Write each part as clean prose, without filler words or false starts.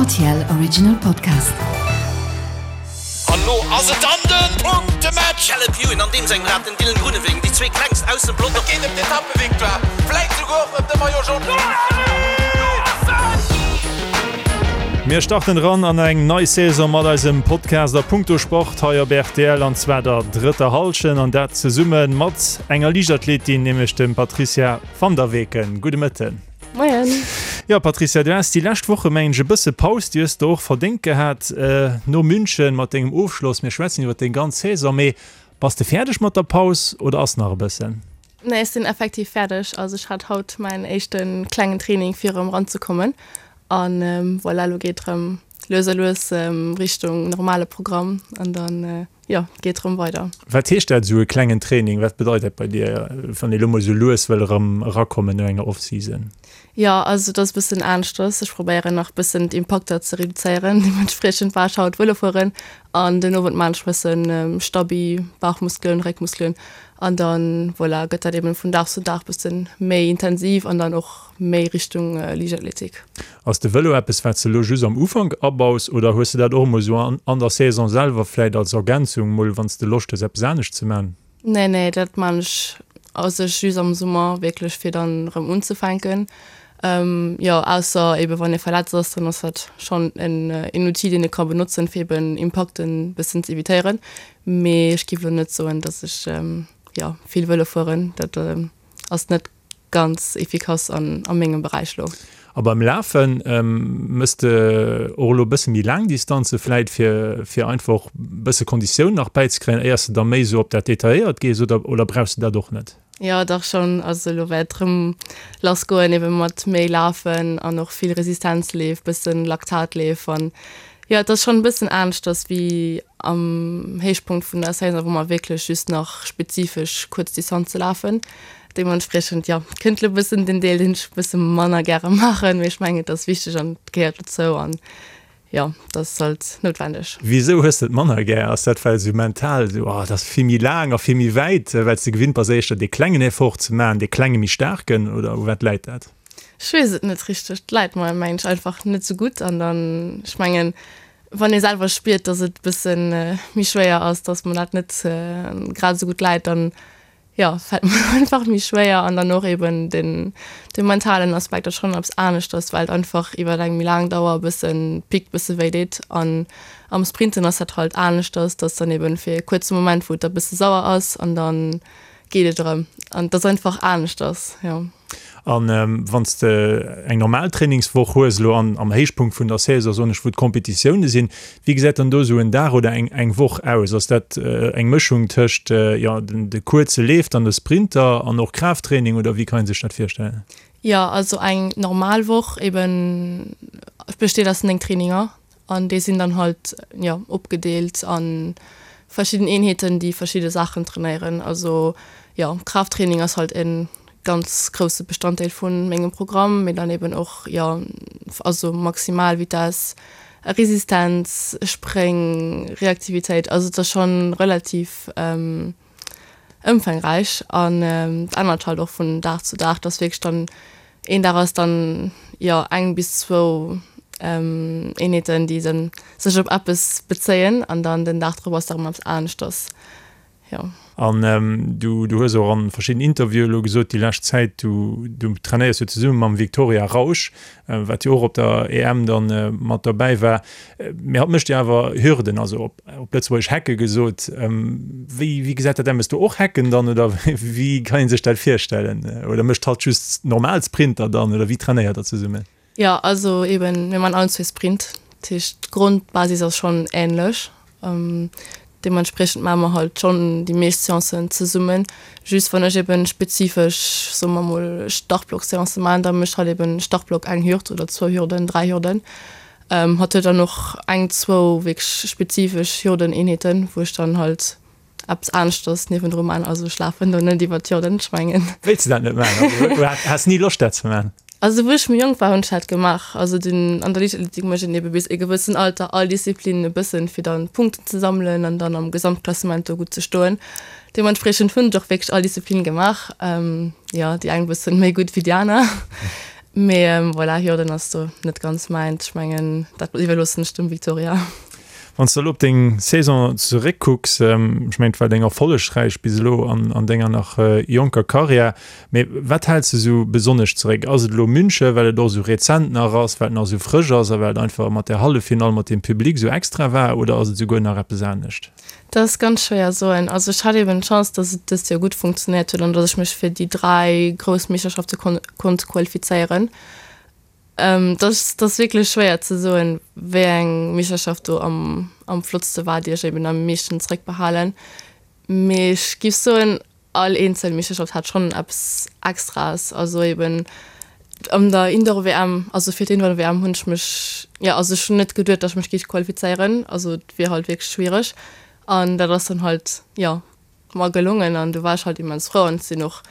RTL Original Podcast. An lo ass et dann den Punktematch! Caleb Ewan an deem sengem Rad, den Dylan Groenewegen, déi zwee klengst aus dem Pelotong. Et geet ëm d'Etappevictoire, vläit souguer och ëm de Maillot Jaune. Mir starten eran an eng nei Saison mat eisem Podcast a Punkto Sport hei op rtl an zwar der drëtter Hallschent an dat zesumme mat enger Liichtathletin, nämlech dem Patricia van der Weken. Gudde Mëtten. Moien. Jo Patricia, du has déi lescht Woche mengen ech e bësse Paus, déi hues de och verdéngt gehat no München mat dengem Ofschloss. Mir schwätzen iwwer deng ganz Saison, mee bass de fäerdeg mat der Paus oder ass nach e bëssen? Nee, ech sinn effektiv fäerdeg. Also ech hat haut mäin éischte klengen Training fir erëm eranzekommen an voilà, elo geet erëm lues a lues Richtung normale Programm an dann Jo, geet rëm weider. Wat heescht dat, esou e klengen Training? Wat bedeit dat bei dir, wann ee lo mol esou lues wëll erëm erakommen no enger Off-Season? Jo, also et ass e bëssen aneschters. Ech probéieren nach e bëssen d'Impakter ze reduzéieren. Deementspriechend war ech haut Vëlo fueren an den Owend maan ech e bëssen Stabi, Bauchmuskelen, Réckmuskelen an dann, voilà, gëtt dat eben vun Dag zu Dag bëssen méi intensiv an dann och méi Richtung Liichtathletik. Ass de Vëlo eppes wat s de elo just am Ufank abaus oder hues de dat och emol esou an der Saison selwer vläit als Ergänzung mol wann s de Loscht hues eppes anescht ze man? Nee nee dat man ech a sech just am Summer wierklech fir dann erëm unzefänken. Jo ausser eben wann ee verletzt ass, dann ass dat schonn en een Outil deen ee ka benotzen fir eben Impakten bëssen ze evitéieren. Mee ech giff elo net soen dass ech jo vill Vëlo fueren, dat ass net ganz efficace an a mengem Beräich lo. A beim Lafen, mëss de och elo e bësse méi laang Distanze vläit fir fir einfach e bësse Konditioun nach bäizekréien, éiers de da méi esou op dat Detailléiert gees oder oder brauchs de dat och net? Jo dach schonn, also elo wäert et rëm lass goen ebe mat méi Lafen an och vill Resistenzleef, bëssen Laktatleef an jo et ass schonn e bëssen aneschters wéi am Héichpunkt vun der Saison, wou mer wierklech just nach spezifesch kuerz Distanze lafen. Deementspriechend, jo, kënnt elo bëssen den Deel, deen ech bësse manner gäre maachen, mee ech mengen, et ass wichteg an et gehéiert dozou an, jo, et ass halt noutwendeg. Wisou hues de et manner gär? Ass dat well esou mental esou, oh, et ass vill méi laang a vill méi wäit, well s de gewinnt bass éischter dee klengen Effort ze maachen, dee klenge méi staarken, oder u wat läit dat? Ech weess et net richteg. Et läit mer, mengen ech, einfach net esou gutt an dann, ech mengen, wann ee selwer spiert, dass et bësse méi schwéier ass, dass mer dat net grad esou gutt läit, dann jo, fält mer einfach méi schwéier an dann och eben den de mentalen Aspekt ass schonn eppes aneschters, well et einfach iwwer eng méi laang Dauer e bëssen pickt, bësse wéi deet an am Sprinten ass dat halt aneschters, dass dann eben fir e kuerze Moment, wou et da bësse sauer ass an dann geet et erëm an et ass einfach aneschters, jo. An wann s de eng normal Trainingswoch hues, elo an am Héichpunkt vun der Saison, soen ech, wou d'Kompetitioune sinn, wéi gesäit dann do esou en Dag oder eng eng Woch aus? Ass dat eng Mëschung tëscht, jo, den de kuerze Leef, dann de Sprinter an och Kraafttraining oder wéi kann ee sech dat virstellen? Jo, also eng normal Woch eben besteet aus 9 Traininger An déi sinn dann halt, jo, opgedeelt a verschidden Eenheeten, déi verschidde Saachen trainéieren. Also, jo, Kraafttraining ass halt e ganz grousse Bestanddeel vu mengem Programm, mee dann eben och, jo, also Maximalvitess, Resistenz, Spréng, Reaktivitéit. Also et ass schonn relativ ëmfangräich an et ännert halt och vun Dag zu Dag, dass wierklech dann een Dag ass dann jo eng bis zwou Eenheeten, déi dann sech op eppes bezéien an dann den Dag drop ass da rëm eppes aneschters, jo. An du du hues och an verschidden Interviewen elo gesot déi lescht Zäit, du du trainéiers jo zesumme mam Victoria Rausch, wat jo och op der EM dann mat dobäi war, mee hatt mécht jo awer Hürden, also op op Lëtzebuergesch Hecke gesot. Wéi wéi gesäit dat aus? Méchs du och Hecken dann oder wéi kann ee sech dat virstellen? Oder mécht hatt just normal Sprinter dann oder wéi trainéiert der zesummen? Jo, also eben, mir man allen zwee Sprint, dat heescht d'Grondbasis ass schonn änlech. Deementspriechend maache mer halt schonn déi meescht Seancen zesummen. Just wann ech eben spezifesch, soe mer mol, Startblock-Seancë maachen, da mécht hatt eben Startblock eng Hürd oder zwou Hürden, dräi Hürden. Hatt huet dann och eng, zwou wierklech spezifesch Hürdeneenheeten, wou ech dann halt eppes aneschters niewendru man. Also ech lafen do net iwwer d'Hürden, ech mengen. Wéilts de dat net man? Also has ni Loscht dat ze man? Also wou ech méi jonk war hunn ech dat gemaach. Also den an der Liichtathletik mécht een ebe bis e gewëssen Alter all Disziplinen e bëssen, fir dann Punkten ze sammelen an dann am Gesamtklassement do gutt ze stoen. Deementspriechend hunn ech och wierklech all Disziplin gemaach. Jo, déi eng bëssen méi gutt wéi déi aner. Mee voilà, Hürden ass do net ganz mäint. Ech mengen, dat iwwerloossen ech dem Victoria. Wann s de elo op deng Saison zeréckkucks, ech mengen, et war deng erfollegräich bis elo an denger nach jonker Karriär, mee wat häls de esou besonnesch zeréck? Ass et elo München, well et och esou rezent nach ass, well et nach esou frësch ass a well et einfach mat där Halleffinall mat deem Public esou extra war, oder ass et esouguer nach eppes anescht? Dat ass ganz schwéier soen. Also ech hat eben d'Chance, datt et dëst Joer gutt funktionéiert huet an datt ech mech fir déi 3 grouss Meeschterschafte konnt qualifizéieren. Et ass, et ass wierklech schwéier ze soen, wéi eng Meeschterschaft do am, am flottste war, déi ech eben am meeschten zeréckbehalen. Mee ech géif soen, all eenzel Meeschterschaft hat schonn eppes Extraes. Also eben an der Indoor-WM, also fir d'Indoor-WM hunn ech mech, jo, also ech hunn net geduet, datt ech mech géif qualifizéieren. Also et wier halt wierklech schwiereg. An dat ass dann halt, jo, mer gelongen an du war ech halt immens frou an sinn och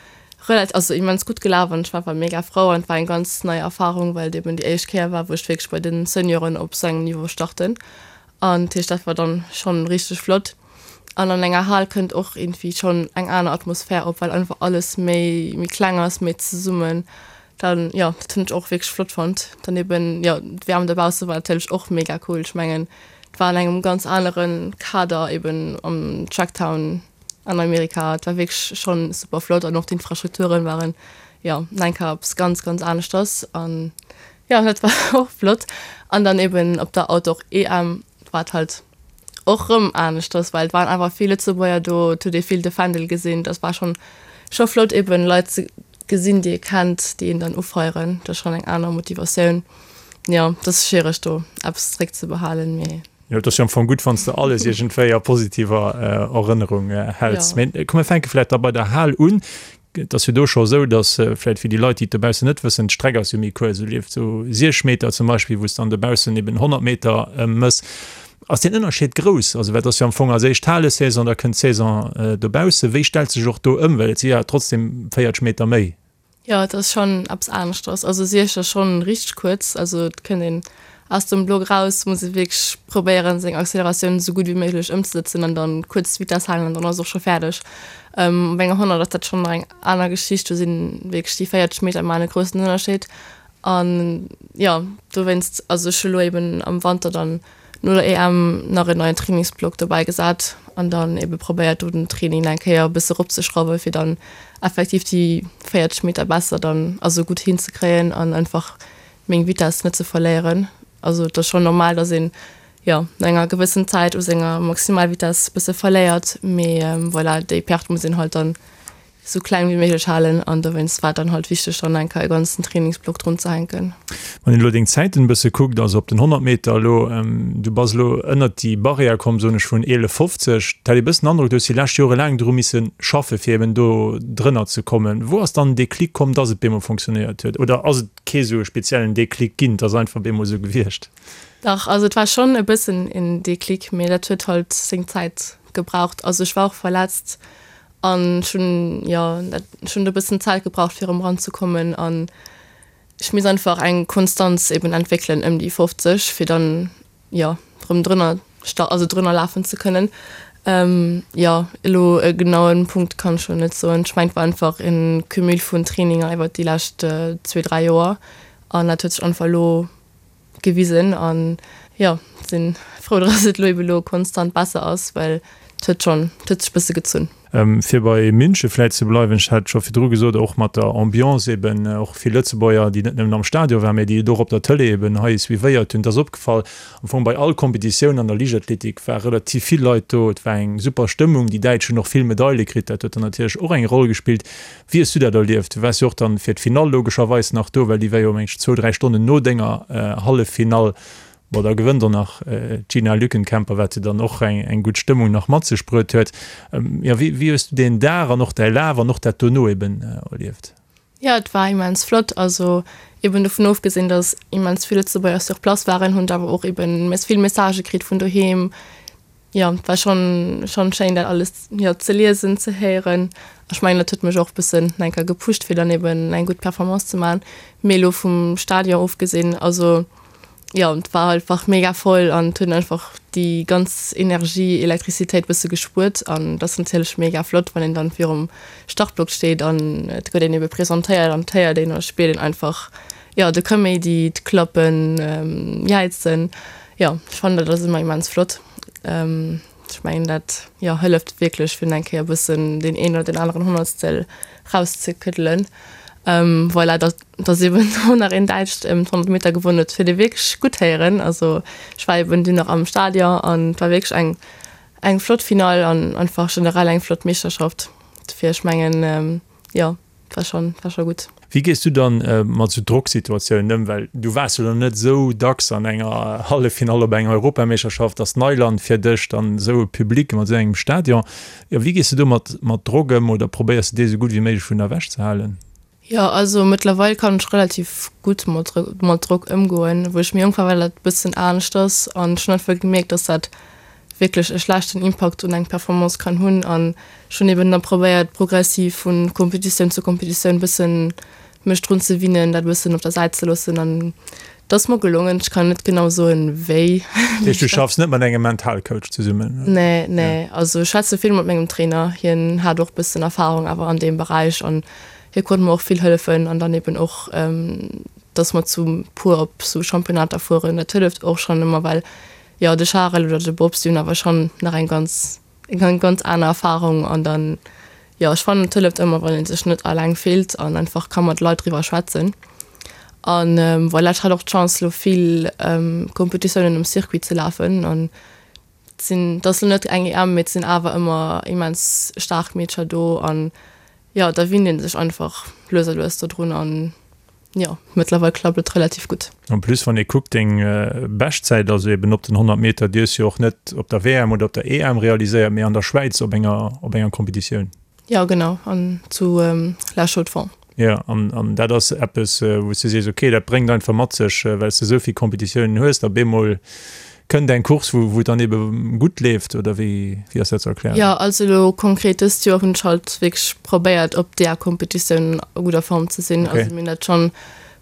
relativ, also immens gutt gelaf an ech war einfach mega frou an et war eng ganz nei Erfahrung, well et eben déi éischt Kéier war, wou ech wierklech bei den Senioren op sou engem Niveau starten an dat heescht dat war dann schonn richteg flott. An an enger Hal kënnt och iergendwéi schonn eng aner Atmosphär op, well einfach alles méi méi kleng ass, méi zesummen dann, jo dat hunn ech och wierklech flott fonnt. Dann eben jo d'WM dobausse war natierlech och mega cool, ech mengen Et war an engem ganz anere Kader eben am Tracktown an Amerika. Et war wierklech schonn super flott an och d'Infrastrukturen waren jo nach eng Kéier eppes ganz, ganz aneschters an jo dat war och flott. An dann eben op der Outdoor EM war et halt och rëm aneschters, well et waren einfach vill Lëtzebuerger do, et huet ee vill de Fändel gesinn. Dat war schonn scho flott eben Leit ze gesinn, déi ee kennt, déi een dann ufeieren. Dat ass schonn eng aner Motivatioun. Jo, et ass schwiereg do eppes zréck ze behalen, mee. Jo, et ass jo am Fong gutt, wann s de alles iergendwéi a positiver Erënnerung häls. Mee komm, mir fänke vläicht da bei der Hal un. Et ass jo do scho esou, datt vläicht fir déi Leit, déi et dobaussen net wëssen, d'Streck ass jo méi kuerz. Du lieft esou 6 Meter zum Beispill, wou s dann dobaussen eben 100 Meter mëss. Ass deen Ënnerscheed grouss? Also, well et ass jo am Fong als éischt d'Halesaison, da kënnt d'Saison dobaussen. Wéi stellt sech och do ëm? Well et si jo trotzdem 40 Meter méi. Jo, et ass schonn eppes aneschters. Also Siech ass schonn richteg kuerz. Also et kënnt een aus dem Block raus, muss ee wierklech probéieren seng Acceleratioun esou gutt wéi méiglech ëmzesëtzen an dann kuerz d'Vitess halen an dann ass och scho fäerdeg. Op enger 100 ass dat schonn nach eng aner Geschicht, do sinn wierklech déi 40 Meter maachen e groussen Ënnerscheed. An jo, dowéinst, also ech hu lo eben am Wanter dann no der EM nach en neien Trainingsblock dobäi gesat an dann ebe probéiert do den Training nach eng Kéier e bësse eropzeschrauwen, fir dann effektiv déi 40 Meter besser dann, also gutt hinzekréien an einfach meng Vitess net ze verléieren. Also et ass schonn normal, dass een, jo, no enger gewëssen Zäit u senger Maximalvitess bësse verléiert, mee voilà, déi Perte muss een halt dann sou kleng wéi méiglech halen an dowéinst war et dann halt wichteg dann eng Kéier e ganzen Trainingsblock drun ze hänken. Wann een elo deng Zäiten e bësse kuckt, also op den 100 Meter elo, du bass elo ënnert déi Barrière komm, soen ech, vun 11,50, et hat ee bëssen den Androck, du hues déi lescht Jore laang dru misse schaffe fir eben do drënner ze kommen. Wou ass dann den Déclic komm, dass et bemol funktionéiert huet? Oder ass et kee sou e speziellen Déclic ginn, et ass einfach bemol sou gewiescht? Dach, also et war schonn e bëssen en Déclic, mee dat huet halt seng Zäit gebraucht. Also ech war och verletzt An ech hunn, jo, dat, ech hunn do e bëssen Zäit gebraucht, fir erëm eranzekommen. An ech misst einfach eng Konstanz eben entwéckelen ëm déi 50, fir dann, jo, erëm drënner sta, also drënner lafen ze kënnen. Jo, elo e genauen Punkt kann ech elo net soen. Ech mengen, et war einfach e Cumul vun Traininger iwwert déi lescht zwee, dräi Joer. An dat huet sech einfach elo gewisen an jo sinn frou dass et elo eben elo konstant besser ass, well et huet schonn, et huet sech bësse gezunn. Fir bei München vläit ze bleiwen, ech hat et scho virdru gesot, och mat der Ambiance eben, och vill Lëtzebuerger, déi net nëmmen am Stadion waren, mä déi et och op der Tëlee eben hei suivéiert hunn. Et ass opgefall, am Fong bei all Kompetitioun an der Liichtathletik war relativ vill Leit do, et war eng super Stëmmung, déi Däitsch hunn och vill Medaile kritt, dat huet dann natierlech och eng Roll gespillt. Wéi hues du dat erlieft? Du waars jo och dann fir d'Finall logescherweis nach do, well déi war jo meng ech zwou, dräi Stonnen no denger Halleffinall. Bon, da gewënnt och nach d'Gina Lückenkämper, wat jo dann och eng eng gutt Stëmmung nach mat sech bruet huet. Jo, wéi wéi hues du deen Dag an och däi Laf an och dat dono eben erlieft? Jo, et war immens flott. Also eben dovun ofgesinn, datt immens vill Lëtzebuerger sur place waren, hunn ech awer och eben vill Messagë kritt vun doheem, Jo, et war schon schon schéin dat alles jo ze liesen, ze héieren. Ech mengen dat huet mech och bëssen nach eng Kéier gepusht fir dann eben eng gutt Performance ze man. Mee elo vum Stadion ofgesinn, also jo et war einfach mega voll an et huet een einfach déi ganz Energie, Elektrizitéit bësse gespuert an dat ass natierlech mega flott wann een dann virum Startblock steet an et gëtt een ebe presentéiert an et héiert een a spiert een einfach. jo, de Kaméidi, d'Klappen, Jäizen. Jo, ech fannen dat ass ëmmer immens flott. Ech mengen dat, jo, hëlleft wierklech fir eng Kéier e bëssen deen een oder deen aneren Honnertstel rauszekëddelen. Voilà, datt datt eben och nach een Däitscht ëm d'100 Meter gewonnen huet, huet ee wierklech gutt héieren. Also ech war eben dunn nach am Stadion an et war wierklech eng eng flott Finall an einfach generell eng flott Meeschterschaft. Dofir ech mengen, jo, war schon, war scho gutt. Wéi gees du dann mat sou Drocksituatiounen ëm? Well du waars jo dann net esou dacks an enger Halleffinall op enger Europameeschterschaft, ass Neiland fir dech, dann esou e Public mat esou engem Stadion. Jo, wéi gees du do mat mat Drock ëm oder probéiers de dee sou gutt wéi méiglech vun der ewech ze halen? Jo, also mëttlerweil kann ech relativ gutt mat mat Drock ëmgoen. Wou ech méi jonk war, war dat e bëssen aneschters an ech hunn einfach gemierkt, dass dat wierklech e schlechten Impakt un eng Performance kann hunn an ech hunn eben da probéiert progressiv vu Kompetitioun zu Kompetitioun bëssen mech drun ze winnen, dat e bëssen op der Säit ze loossen an et ass mer gelongen. Ech kann net genau soen wéi. Dat heescht du schaffs net mat engem Mentalcoach zesummen? Nee, nee, also ech schwätze vill mat mengem Trainer, hien hat och bëssen Erfahrung awer an deem Beräich an hie konnt mer och vill hëllefen an dann eben och dass mer zu puer op sou Championnater fueren, dat hëlleft och schonn ëmmer well Jo, de Charel oder de Bob, si hunn awer schonn nach eng ganz, eng ganz aner Erfarung an dann, jo, ech fannen et hëlleft ëmmer, wann ee sech net alleng fillt an einfach ka mat Leit driwwer schwätzen. An voilà, ech hat och d'Chance elo vill Competitiounen um Circuit ze lafen an et sinn, et ass elo net eng EM, mee et sinn awer ëmmer immens staark Meedercher do an jo, da winnt ee sech einfach lues a lues dodrun an Jo, mëttlerweil klappt et relativ gutt. En plus, wann ee kuckt, deng Beschtzäit, also eben op den 100 Meter, déi hues du jo och net op der WM oder op der EM realiséiert, mee an der Schwäiz op enger, op enger Competitioun. Jo, genau, an zu La Chaux-de-Fonds. Jo, an, an dat ass eppes, wou s du sees, okay, dat bréngt einfach mat sech, well s de esou vill Competitiounen hues, da bemol Kënnt eng Course, wou et dann ebe gutt leeft, oder wéi ass dat ze erklären? Jo, also elo konkret dëst Joer hunn ech halt wierklech probéiert op där Kompetitioun a gudder Form ze sinn. Also mir hunn dat schonn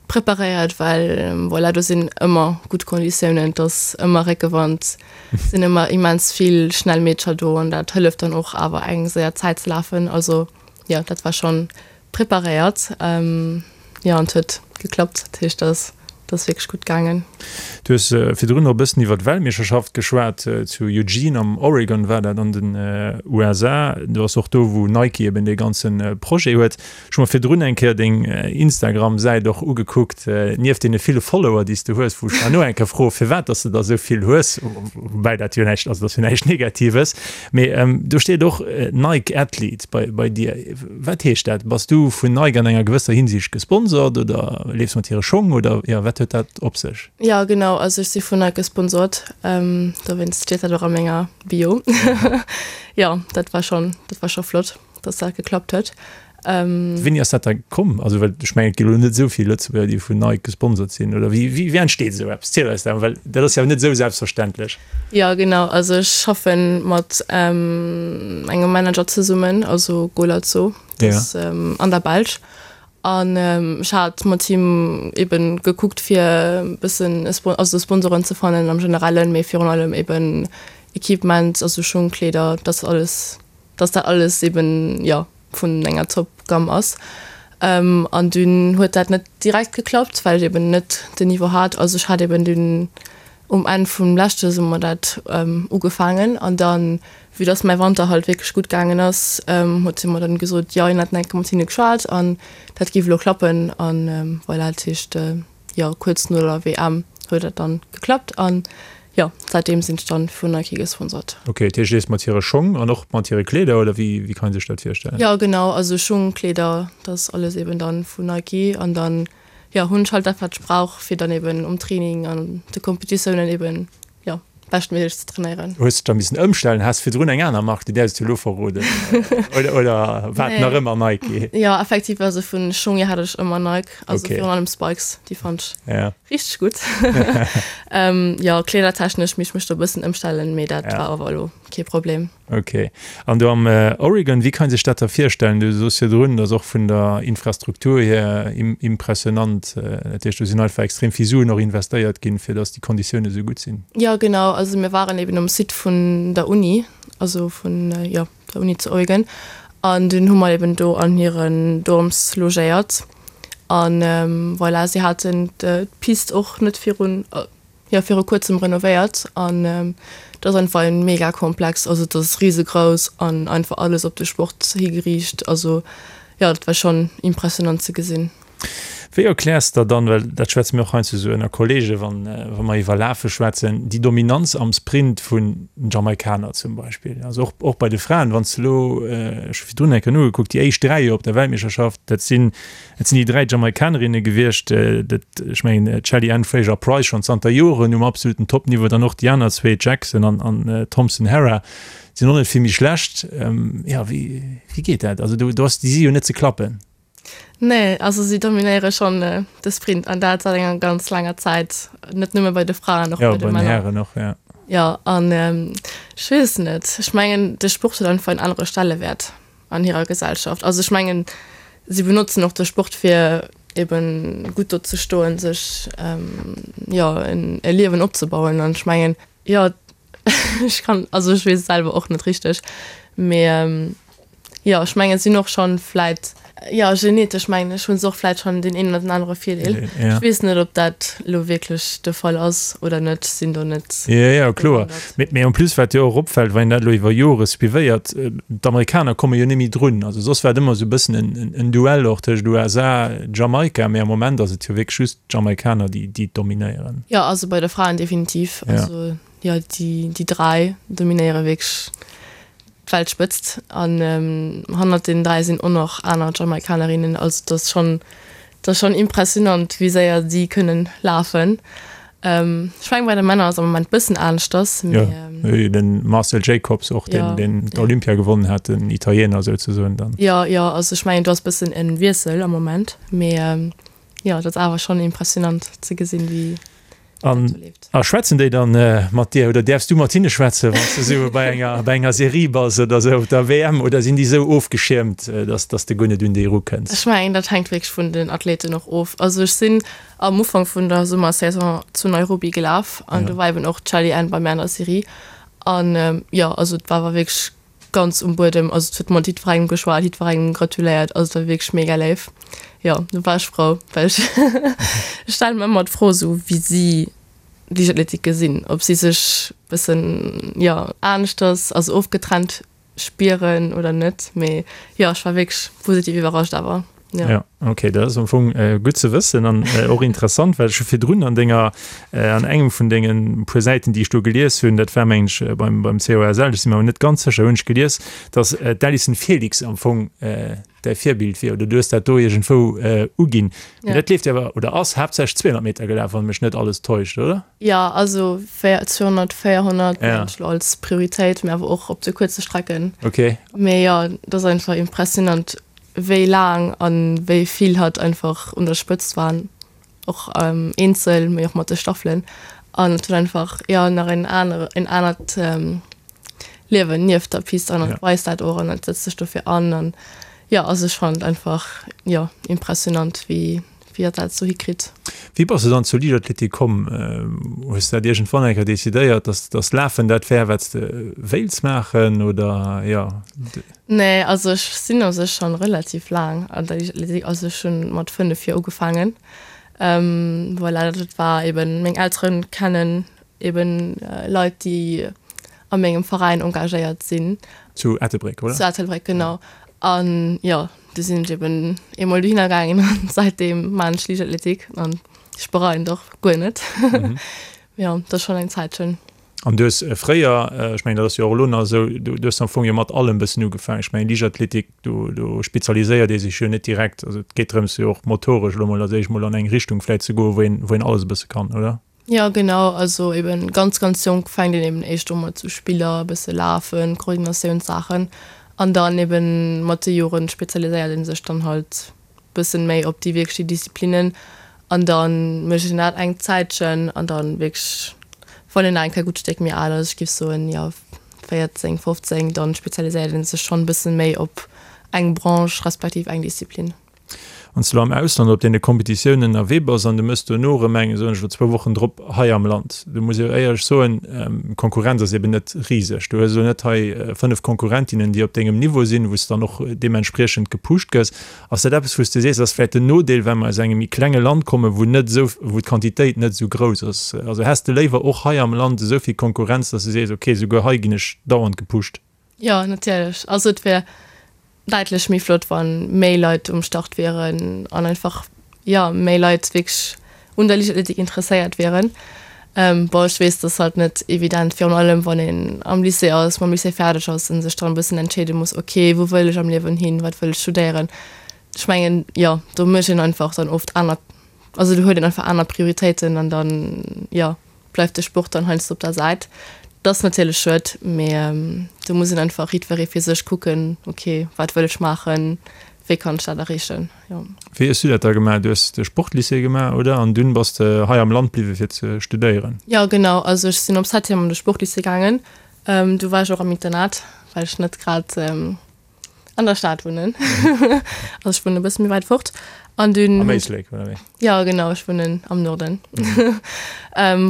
preparéiert, well voilà, do sinn ëmmer gutt Konditiounen, et ass ëmmer Réckewand, et sinn ëmmer immens vill schnell Meedercher do an dat hëlleft dann och awer eng séier Zäit ze lafen. Also jo, dat war schonn Preparéiert, jo, an et huet geklappt, dat heescht dat ass wierklech gutt gaangen. Du hues virdrun och e bëssen iwwer d'Weltmeeschterschaft geschwat, zu Eugene am Oregon war dat an den USA. Do ass och do wou Nike eben dee ganze Projet huet. Ech hu mer virdrun eng Kéier deng Instagram-Säit och ugekuckt, nieft deene ville Follower déi s de hues, wou ech herno eng Kéier froe firwat datt s de der esou vill hues, woubäi dat jo näischt ass, dat ass jo näischt Negatives. Mee do steet och Nike Athlete bei dir. Wat heescht dat? Bass du vun Nike an enger gewësser Hinsicht gesponsort oder leefs mat hire Schong oder jo, wat huet dat op sech? Jo genau, also ech si vun Nike gesponsort, dowéinst steet dat och a menger Bio. Jo, dat war schonn, dat war scho flott, dass dat geklappt huet. Wéini ass dat da komm? Also well ech mengen et gi lo net esou vill Lëtzebuerger déi vun Nike gesponsert sinn oder wéi wéi entsteet esou eppes? Ziel eis dat mol, well dat ass jo net esou selbstverständlech. Jo genau, also ech schaffe mat engem Manager zesummen, also Golazzo, dat ass an der Belsch an ech hat mat him eben gekuckt fir e bëssen also Sponsoren ze fannen am Generellen, mee virun allem eben Equipement, also Schung, Kleeder, dass alles dass dat alles eben jo vun enger Top Gamme ass. An dunn huet dat net direkt geklappt, well ech eben net den Niveau hat. Also ech hat eben dunn um Enn vum leschte Summer dat ugefaangen an dann, vue dass mäi Wanter halt wierklech gutt gaangen ass, huet si mer dann gesot, jo hien hätt eng Kéier mat hinne geschwat an dat géif elo klappen. An voilà, dat heescht jo kuerz no der WM huet dat dann geklappt an jo säitdeem sinn ech dann vun Nike gesponsert. Ok, dat heescht du leefs mat hire Schong an och mat hire Kleeder oder wéi wéi kann een sech dat virstellen? Jo genau, also Schung, Kleeder, dat ass alles eben dann vun Nike an dann jo hunn ech halt dat wat ech brauch fir dann eben um Training an de Competitiounen eben jo beschtméiglech ze trainéieren. Hues dech da missen ëmstellen? Has virdrun eng aner Mark, déi däerfs du elo verroden oder oder war et nach ëmmer Nike? Jo effektiv, also vun Schung hier hat ech ëmmer Nike, also virun allem Spikes, déi fannt ech richteg gutt. Jo kleedertechnesch misst ech mech do e bëssen ëmstellen, mee dat war awer elo kee Problem. Ok. An do am Oregon, wéi kann ee sech dat da virstellen? Du soos virdrun, dat ass och vun der Infrastruktur hier impressionant. Dat heescht, do sinn einfach extrem vill Suen och investéiert ginn, fir datt déi Konditioune sou gutt sinn. Jo, genau. Also mir waren eben um Site vun der Uni, also vun, jo, der Uni zu Oregon. An dunn hu mer eben do an hiren Dorms logéiert. An voilà, si haten d'Pist och net virun, jo viru kuerzem renovéiert an et ass einfach e mega Komplex. Also et ass risegrouss an einfach alles op de Sport higeriicht. Also jo, dat war schonn impressionant ze gesinn. Wéi erkläers der dann, well dat schwätze mir och heiansdo esou ënner Kollege wann wa mer iwwer Lafe schwätzen, déi Dominanz am Sprint vun den Jamaikaner zum Beispill, also och och bei de Fraen, wann s de elo, ech hu virdrun eng Kéier nogekuckt, déi éischt 3 jo op der Weltmeeschterschaft, dat sinn dat sinn déi 3 Jamaikanerinne gewiescht, dat ech mengen d'Shelly-Ann Fraser-Pryce schonn zanter Joren um absoluten Topniveau, dann och déi aner zwee, d'Jackson an an d'Thompson-Herah sinn och net vill méi schlecht. Jo, wéi wéi geet dat? Also do do ass déi si jo net ze klappen. Nee, also si dominéiere schonn de Sprint an dat säit enger ganz laanger Zäit, net nëmme bei de Fraen, och bei de Männer. Ja, bei den Hären och, ja. Jo, an ech weess net, ech mengen de Sport huet einfach en anere Stellewäert an hirer Gesellschaft. Also ech mengen, si benotzen och de Sport fir eben gutt do ze stoen, sech jo e Liewen opzebauen an ech mengen, jo ech kann, also ech weess et selwer och net richteg, mee Jo, ech mengen, et sinn och schonn vläit, jo, genetesch mengen ech, hu se och vläit schonn deen een oder den anere Virdeel. Ech weess net, ob dat elo wierklech de Fall ass oder net, sinn do net. Jo, jo, kloer. Mee en plus, wat jo och opfält, wann een dat elo iwwer Jore suivéiert, d'Amerikaner komme jo net méi drun. Also soss war et ëmmer esou e bëssen en Duell och tëscht USA, Jamaika, mee am Moment ass et jo wierklech just d'Jamaikaner, déi déi dominéieren. Jo, also bei de Fraen definitiv. Also jo, déi déi 3 dominéiere wierklech d'Weltspëtzt an hannert den 3 sinn och nach aner Jamaikanerinnen. Also et ass schonn, et ass schonn impressionant wéi séier si kënnen lafen. Ech mengen bei de Männer ass am Moment bëssen aneschters, mee. Jo, den Marcel Jacobs och, deen deen d'Olympia gewonnen hat, den Italiener souzesoen dann. Jo, jo, also ech mengen do ass bëssen en Wiessel am Moment, mee jo, et ass awer schonn impressionant ze gesinn wéi. An a schwätzen déi dann mat dir oder däerfs du mat hinne schwätzen, wann s de sou bei enger bei enger Serie bass oder sou op der WM oder sinn déi sou ofgeschiermt, dass dass de guer net un déi erukënns? Ech mengen, dat hänkt wierklech vun den Athleten och of. Also ech sinn am Ufank vun der Summersaison zu Nairobi gelaf an do war eben och d'Shelly-Ann bei mir an der Serie an jo, also et war awer wierklech ganz um Buedem, also et huet mat jiddwerengem geschwat, jiddwerengem gratuléiert, also et war wierklech mega léif. Jo, do war ech frou, well ech ech stelle mer ëmmer d'Fro esou wéi si Liichtathletik gesinn, ob si sech bëssen, jo, aneschters, also ofgetrennt spieren oder net, mee jo, ech war wierklech positiv iwwerrascht awer. Ja. Ja, okay, dat ass am Fong äh, gutt ze wëssen an äh, och interessant, well ech hu virdrun an denger äh, an engem vun dengen puer Säiten, déi ech do gelies hunn, dat war meng ech äh, beim, beim COSL, ech si mir awer net ganz sécher, hunn ech gelies, dass äh, d'Allyson Felix am Fong äh, däi Virbild wier oder du hues dat do iergendwou äh, uginn. Mee Ja. dat leeft jo awer oder ass haaptsächlech 200 Meter gelaf, wann mech net alles täuscht, oder? Ja, also 200, 400 ja. als Prioritéit, mee awer och op de kuerze Strecken. Okay. Mee jo, dat ass einfach impressionant. wéi laang an wéi vill hatt einfach un der Spëtzt war, och eenzel, mee och mat de Staffelen. An et huet einfach, jo, nach en anere, en anert Liewen nieft der Pist an et weist dat och an et setzt sech dofir an. An jo, also ech fannen et einfach, jo, impressionant, wéi, wéi hatt dat esou hikritt. Wéi bass de dann zur Liichtathletik komm? Hues de dat iergendwann eng Kéier decidéiert, dass, dass Lafen dat wär, wat s de wéilts maachen, oder jo? Nee, also ech sinn u sech schon relativ laang an der Liichtathletik, also ech hunn mat 5 Joer ugefaangen. Voilà, dat war eben, meng Elteren kennen eben Leit déi a mengem Veräin engagéiert sinn. Zu Ettelbréck, oder? Zu Ettelbréck, genau. An jo, du sinn ech eben eemol dohinner gaangen an säitdeem maan ech Liichtathletik an ech bereien et och guer net. Jo, dat ass schon eng Zäitchen. An du hues fréier, ech mengen dat ass jo och elo nach esou, du hues am Fong jo mat allem e bëssen ugefaangen. Ech mengen Liichtathletik, do do spezialiséiert ee sech jo net direkt. Also et geet drëms jo och motoresch elo mol als éischt mol an eng Richtung vläicht ze goen, wou een wou een alles e bësse kann, oder? Jo genau, also eben ganz ganz jonk fänkt een eben éischt u mat sou Spiller, e bësse lafen, Koordinatiounssaachen an dann eben mat de Joren spezialiséiert ee sech dann halt bëssen méi op déi wierklech déi Disziplinnen an dann mécht een dat eng Zäitchen an dann wierklech wann een nach eng Kéier gutt Stéck méi al ass, ech géif soen jo 14, 15, dann spezialiséiert een sech schonn bëssen méi op eng Branche respektiv eng Disziplin. Wann s de elo am Ausland op deene Kompetitiounen ënnerwee bass an du méchs dono erëm eng, soen ech elo, zwou Wochen drop hei am Land, do muss ech éierlech soen, d'Konkurrenz ass eben net riseg. Du hues elo net hei 5 Konkurrentinnen, déi op dengem Niveau sinn, wou s de dann och deementspriechend gepusht gëss. Ass dat eppes, wou s de sees, ass vläicht den Nodeel, well mer aus engem méi klenge Land kommen, wou net esou, wou d'Quantitéit net esou grouss ass? Also häss de léiwer och hei am Land esou vill Konkurrenz, dass de sees, okay, souguer hei ginn ech dauernd gepusht? Jo, natierlech. Also et wär däitlech méi flott, wa méi Leit um Start wieren an einfach, jo, méi Leit wierklech un der Liichtathletik interesséiert wieren. Bon, ech weess, dat ass halt net evident, virun allem wann een am Lycée ass, mam Lycée fäerdeg ass a sech dann e bëssen entscheede muss, ok, wou wëll ech am Liewen hin, wat wëll ech studéieren. Ech mengen, jo, do mécht een einfach dann oft aner, also do huet een einfach aner Prioritéiten an dann, jo. bleift de Sport dann heiansdo op der Säit. Dat ass natierlech schued, mee do muss een einfach jiddweree fir sech kucken, ok, wat wëll ech maachen, wéi kann ech dat erreechen, jo. Wéi hues du dat da gemaach? Du hues de Sportlycée gemaach, oder? An dunn bass de hei am Land bliwwe fir ze studéieren? Jo, genau. Also ech sinn op Septième an de Sportlycée gaangen. Do war ech och am Internat, well ech net grad An der Stad wunnen. Also ech wunnen e bësse méi wäit fort. An dunn. Am Éislek, oder wéi? Ja, genau, ech wunnen am Norden. Mhm.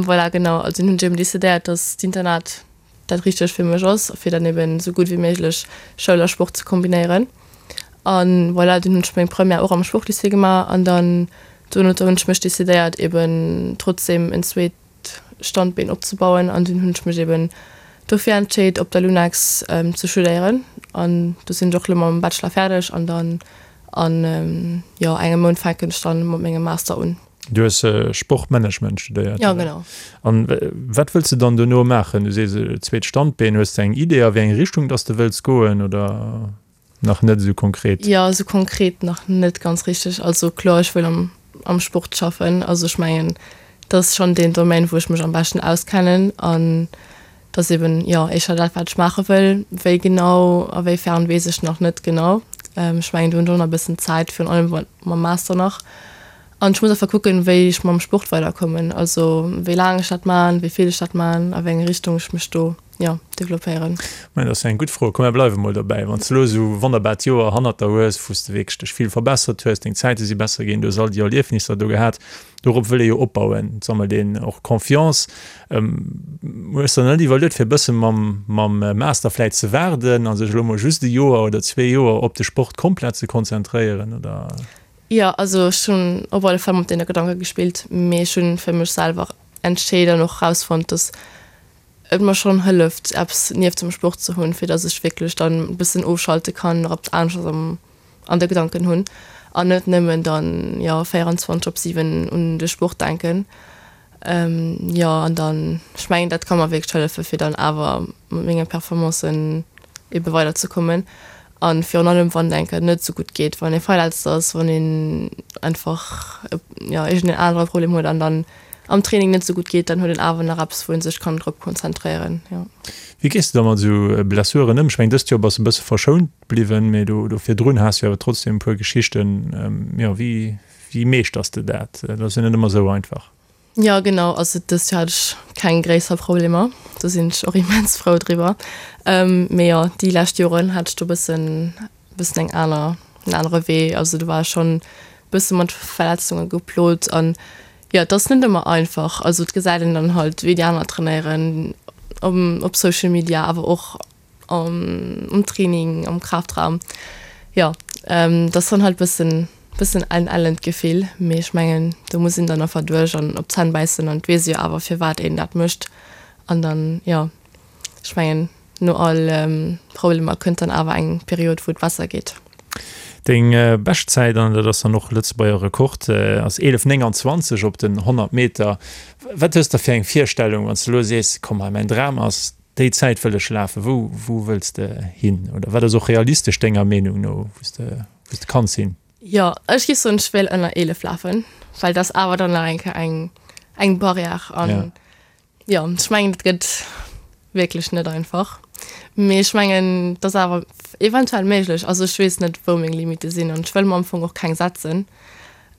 Voilà, genau. Also dunn hunn ech eben decidéiert, dass d'Internat dat Richtegt fir mech ass, fir dann eben esou gutt wéi méiglech Schoul a Sport ze kombinéieren. An voilà, dunn hunn ech meng Première och am Sportlycée gemaach an dann dono hunn ech mech decidéiert, eben trotzdem en zweet Standbeen opzebauen an dunn hunn ech mech eben dofir entscheet op der Lunex ze studéieren an do sinn ech och elo mam Bachelor fäerdeg an dann an jo engem Mount fänken ech dann mat mengem Master un. Du hues Sportmanagement studéiert? Jo genau. An wat wëlls de dann dono maachen? Du sees zweet Standbeen, hues de eng Idee a wéi eng Richtung dass de wëlls goen oder? Nach net esou konkret? Jo, esou konkret nach net ganz richteg. Also kloer, ech wëll am, am Sport schaffen. Also ech mengen, dat ass schonn deen Domaine, wou ech mech am beschten auskennen an dat ass eben, jo, éischter dat, wat ech maache wëll. Wéi genau a wéi fern, weess ech nach net genau. Ech mengen, do hunn ech och nach e bëssen Zäit, virun allem mam Master nach. An ech muss einfach kucken, wéi ech mam Sport weiderkommen, also wéi laang ech dat man, wéi vill ech dat man, a wéi eng Richtung ech mech do, jo, developpéieren. Mä dat ass jo eng gutt Fro. Komm, mir bleiwe mol dobäi. Wann s de elo esou e wonnerbart Joer hannert der hues, wou s de wierklech dech vill verbessert hues, deng Zäite si besser ginn, du hues all déi Erliefnisser do gehat, dorop wëll ee jo opbauen, et sammelt een och Confiance. Hues de der net iwwerluet, fir e bësse mam mam Master vläit ze waarden a sech elo mol just e Joer oder zwee Joer op de Sport komplett ze konzentréieren, oder? Jo, also ech hunn op alle Fall mat deene Gedanke gespillt, mee ech hunn fir mech selwer entscheet an och rausfonnt, dass et mer schonn hëlleft, eppes nieft dem Sport ze hunn, fir dass ech wierklech dann e bëssen ofschalte kann, nach eppes aneschters am an de Gedanken hunn an net nëmmen dann, jo, 24 op 7 un de Sport denken. Jo, an dann, ech mengen, dat ka mer wierklech hëllefen, fir dann awer mat menge Performancen ebe weiderzekommen. A virun allem, wann et eng Kéier net esou gutt geet, wann ee verletzt ass, wann een einfach, jo, iergendeen anere Problem huet an dann am Training net esou gutt geet, dann huet een awer nach eppes, wou ee sech kann drop konzentréieren, jo. Wéi gees de da mat esou Blessuren ëm? Ech mengen, dëst Joer bass de e bësse verschount bliwwen, mee do virdrun has de jo awer trotzdem e puer Geschichten. Jo, wéi Wéi meeschters de dat? Dat ass jo net ëmmer esou einfach. Jo genau, also dëst Joer hat ech keng gréisser Problemer, do sinn ech och immens frou driwwer. Mee jo, déi lescht Joren hat ech do bëssen bëssen eng aner en anere Wee, also do war ech schonn bësse mat Verletzunge geplot an jo, et ass net ëmmer einfach. Also et gesäit een dann halt wéi déi aner trainéieren op Social Media, awer och am Training, am Kraftraum, jo, dat ass dann halt bëssen, bëssen en ellent Gefill, mee ech mengen do muss een dann einfach duerch an op d'Zänn bäissen an et weess ee jo awer firwat een dat mécht an dann, jo, ech mengen no all Problemer kënnt dann awer eng Period wou et besser geet. Deng Beschtzäit, an dat ass dann och Lëtzebuerger Rekord, ass 11,29 op den 100 Meter. Wat hues de fir eng Virstellung, wann s de elo sees, komm hei mäin Dram ass Déi Zäit wëll ech lafen. Wou, wou wëlls de hin? Oder wat ass och realistesch denger Meenung no, wou s de, wou s de kanns hin? Jo, ech géif soen, ech wéilt ënner 11 lafen, well dat ass awer dann nach eng Kéier eng, eng Barrière. An jo, ech mengen, dat gëtt wierklech net einfach. Mee ech mengen, et ass awer eventuell méiglech. Also ech weess net, wou meng Limite sinn an ech wëll mer am Fong och keng setzen.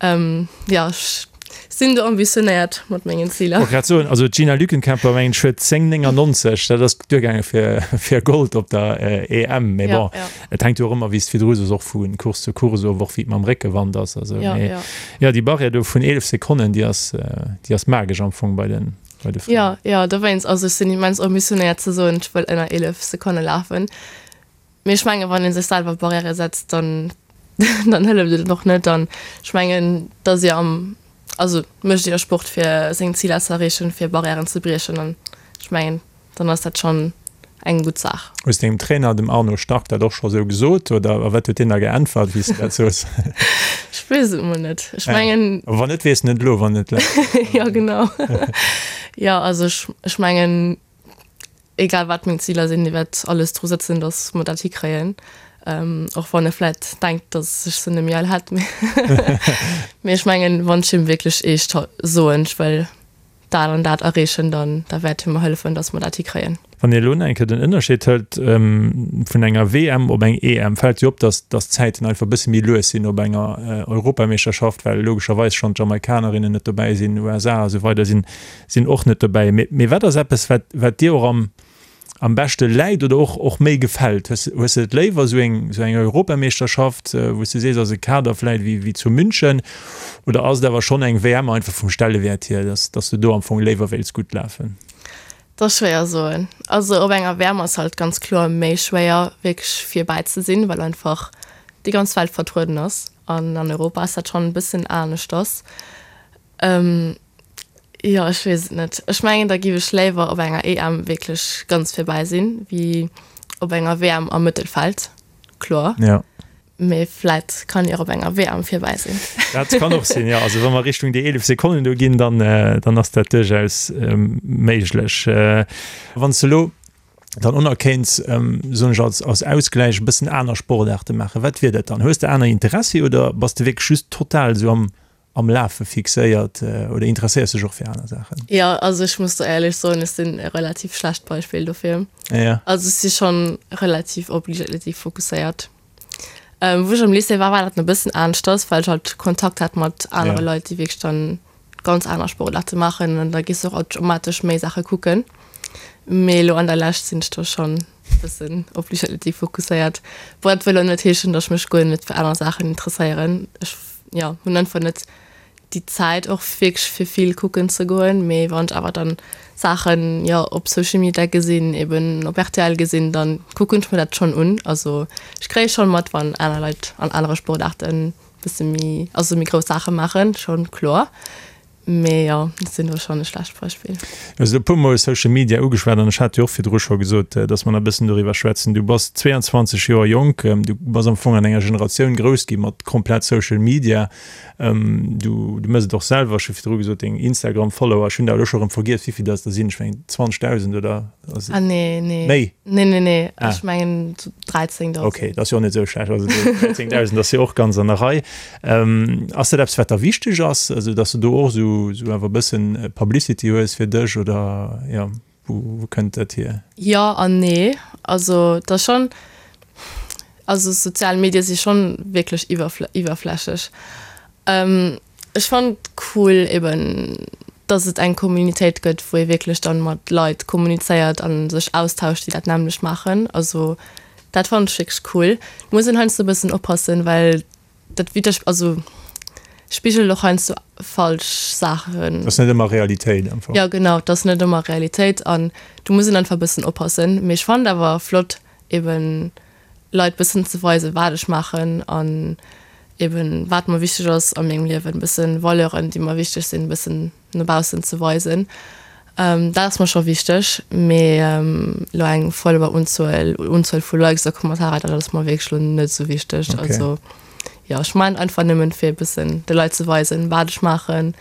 Jo, ech. Sinn do ambitionéiert mat mengen Ziler. Wollt grad soen, also d'Gina Lückenkämper mengen ech huet 10,99, dat ass duergaange fir fir Gold op der EM. Mee bon, et hänkt jo och ëmmer, wéi s de virdru soos, och vu Course zu Course of, och wéi et mam Réckewand ass. Also mee jo, déi Barrière do vun 11 Sekonnen, déi ass déi ass magesch am Fong bei den bei de Fraen. Jo, jo, dowéinst. Also ech sinn immens ambitionéiert ze soen, ech wëll ënner 11 Sekonne lafen. Mee ech mengen, wann ee sech selwer Barrièrë setzt, dann, dann hëlleft et och net. An ech mengen, et ass jo am, also mécht ee jo Sport fir seng Ziler ze erreechen, fir Barrièren ze briechen. An ech mengen, dann ass dat schonn eng gutt Saach. Hues dengem Trainer, dem Arno Stark, dat och scho sou gesot oder a wat huet deen da geäntwert, wéi s de dat soos? Ech weess et mol net. Ech mengen. A wann net, weess en et elo, wann et läit. Jo, genau. Jo, also ech, ech mengen, Egal wat meng Ziler sinn, dee wäert alles dru sëtzen, datt mer dat hikréien. Och wann e vläit denkt, datt ech se net méi all hätt. Mee ech mengen, wann ech him wierklech eescht soen, ech wëll dat an dat erreechen, dann da wäert hie mer hëllefen, datt mer dat hikréien. Wann ee elo nach eng Kéier den Ënnerscheed hëlt vun enger WM op eng EM, fält jo op, datt datt d'Zäiten einfach e bësse méi lues sinn op enger Europameeschterschaft, well logescherweis schonn d'Jamaikanerinnen net dobäi sinn, USA a sou weider sinn sinn och net dobäi. Mee wat ass eppes, wat, wat dir och am, am beschte läit oder och, och méi gefält? Hues, hues de et léiwer, esou eng, esou eng Europameeschterschaft, wou s de sees, ass e Kader vläicht wéi, wéi zu München, oder ass et awer schonn eng WM einfach vum Stellewäert hier, dass, dass de do am Fong léiwer wéilts gutt lafen? Dat ass schwéier soen. Also op enger WM ass halt ganz kloer méi schwéier wierklech virbäi ze sinn, well einfach déi ganz Welt vertrueden ass an an Europa ass dat schonn e bëssen aneschters. Jo, ech weess et net. Ech mengen, da giff ech léiwer op enger EM wierklech ganz virbäi sinn, wéi op enger WM am Mëttelfeld, kloer. Ja. Mee vläit kann ech och op enger WM virbäi sinn. Dat kann och sinn, jo. Also wa mer Richtung déi 11 Sekonnen do ginn, dann, dann ass dat duerchaus méiglech. Wann s de elo dann och nach kéints, soen ech als, als Ausgläich, e bëssen aner Sportaarte maachen, wat wier dat dann? Hues de aner Interessi oder bass de wierklech just total esou am, am Lafe fixéiert oder interesséiers dech och fir aner Saachen? Jo, also ech muss do éierlech soen, ech sinn e relativ schlecht Beispill dofir. Ja. Also ech si schonn relativ op Liichtathletik fokusséiert. Wou ech am Lycée war, war dat nach e bëssen aneschters, well ech halt Kontakt hat mat anere Ja. Leit, déi wierklech dann ganz aner Sportaarte maachen an da gees de och automatesch méi Saache kucken. Mee elo an der Lescht sinn ech do schonn e bëssen op Liichtathletik fokusséiert. Bon, dat wëll elo net heeschen, datt ech mech guer net fir aner Saachen interesséieren. Ech jo, hunn einfach net déi Zäit och wierklech fir vill kucken ze goen, mee wann ech awer dann Saachen, jo, op Social Media gesinn, eben op rtl gesinn, dann kucken ech mir dat schonn un. Also ech kréie schonn mat, wann aner Leit an anere Sportaarten bësse méi, also méi grouss Saache maachen, schonn kloer. Mee jo, ech sinn do schonn e schlecht Beispill. Du hues elo e puer Mol Social Media ugeschwat an ech hat jo och virdru scho gesot, dass mer nach e bëssen doriwwer schwätzen. Du bass 22 Joer jonk, du bass am Fong an enger Generatioun grouss gi mat komplett Social Media. Du, du méchs et och selwer, ech hu virdru gesot, deng Instagram-Follower, ech hunn der elo scho erëm vergiess, wéi vill dass der sinn, ech mengen 20.000 oder ass et Ah nee, nee. méi? Nee, nee, nee, ech mengen 13.000. Okay, dat ass jo och net esou schlecht. Also 13.000 ass jo och ganz an der Rei. Ass dat eppes wat der wichteg ass, also datt s de do och esou esou awer e bëssen Publicity hues fir dech oder jo wou wou kënnt dat hier? Jo an nee, also et ass schonn, also sozial Medie si schonn wierklech iwwerflächlech. Ech fannen et cool eben datt et eng Communitéit gëtt wou ee wierklech dann mat Leit kommunizéiert an sech austauscht déi dat nämmlecht maachen, also dat fannen ech wierklech cool. Et muss een heiansdo e bëssen oppassen, well dat widder, also spigelt och heiansdo falsch Saachen. Ass net ëmmer Realitéit einfach. Jo genau, et ass net ëmmer Realitéit an do muss een einfach e bëssen oppassen. Mee ech fannen et awer flott eben Leit bëssen ze weisen wat ech maachen an eben wat mer wichteg ass a mengem Liewen, bëssen Valeuren déi mer wichteg sinn bëssen no baussen ze weisen. Dat ass mer scho wichteg, mee elo eng Follower-Unzuel, Unzuel vu Likes a Kommentarer, dat ass mer wierklech elo net esou wichteg. Okay. Also jo, ech maachen einfach nëmmen fir e bëssen de Leit ze weisen, wat ech maachen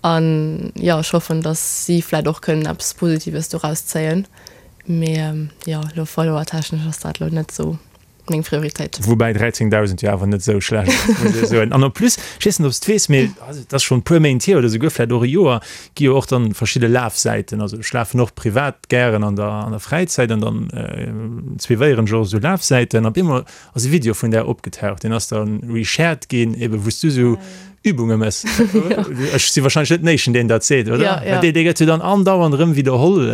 an jo, ech hoffen, datt si vläit och kënnen eppes Positives doraus zéien, mee jo, elo follower-technesch ass dat elo net esou. meng Prioritéit. Woubäi 13.000 jo awer net esou schlecht ass, muss ee soen. An en plus, ech weess net, ob s de weess, mee et ass schonn e puer Méint hier oder souguer vläicht och e Joer, gi jo och dann verschidde Lafsäiten. Also ech lafen och privat gären an der, an der Fräizäit an dann suivéieren ech och esou Lafsäiten. An op eemol ass e Video vun där opgetaucht, deen ass dann reshared ginn, ebe wou s du esou. Übunge mëss. Ech si wahrscheinlech net den éischten, deen dat seet, oder? Ja, ja. Dee, dee gëtt jo dann andauernd erëm widderholl.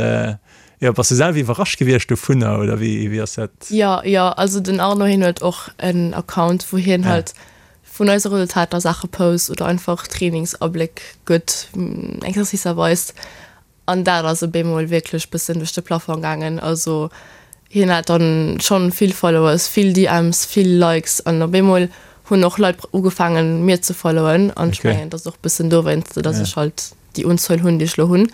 Jo, bass du selwer iwwerrascht gewiescht dovunner oder wéi, wéi ass dat? Jo, jo, also den Arno hien huet och en Account, wou hien halt vun eise Resultater Saache post oder einfach Trainingsabléck gëtt, Exercicer weist. An dat ass op eemol wierklech bëssen duerch de Plafong gaangen. Also hien hat dann schonn vill Followers, vill DMs, vill Likes an op eemol hunn och Leit ugefaangen mir ze followen an ech mengen et ass och bëssen dowéinst, datt ech halt déi Unzuel hunn déi ech lo hunn.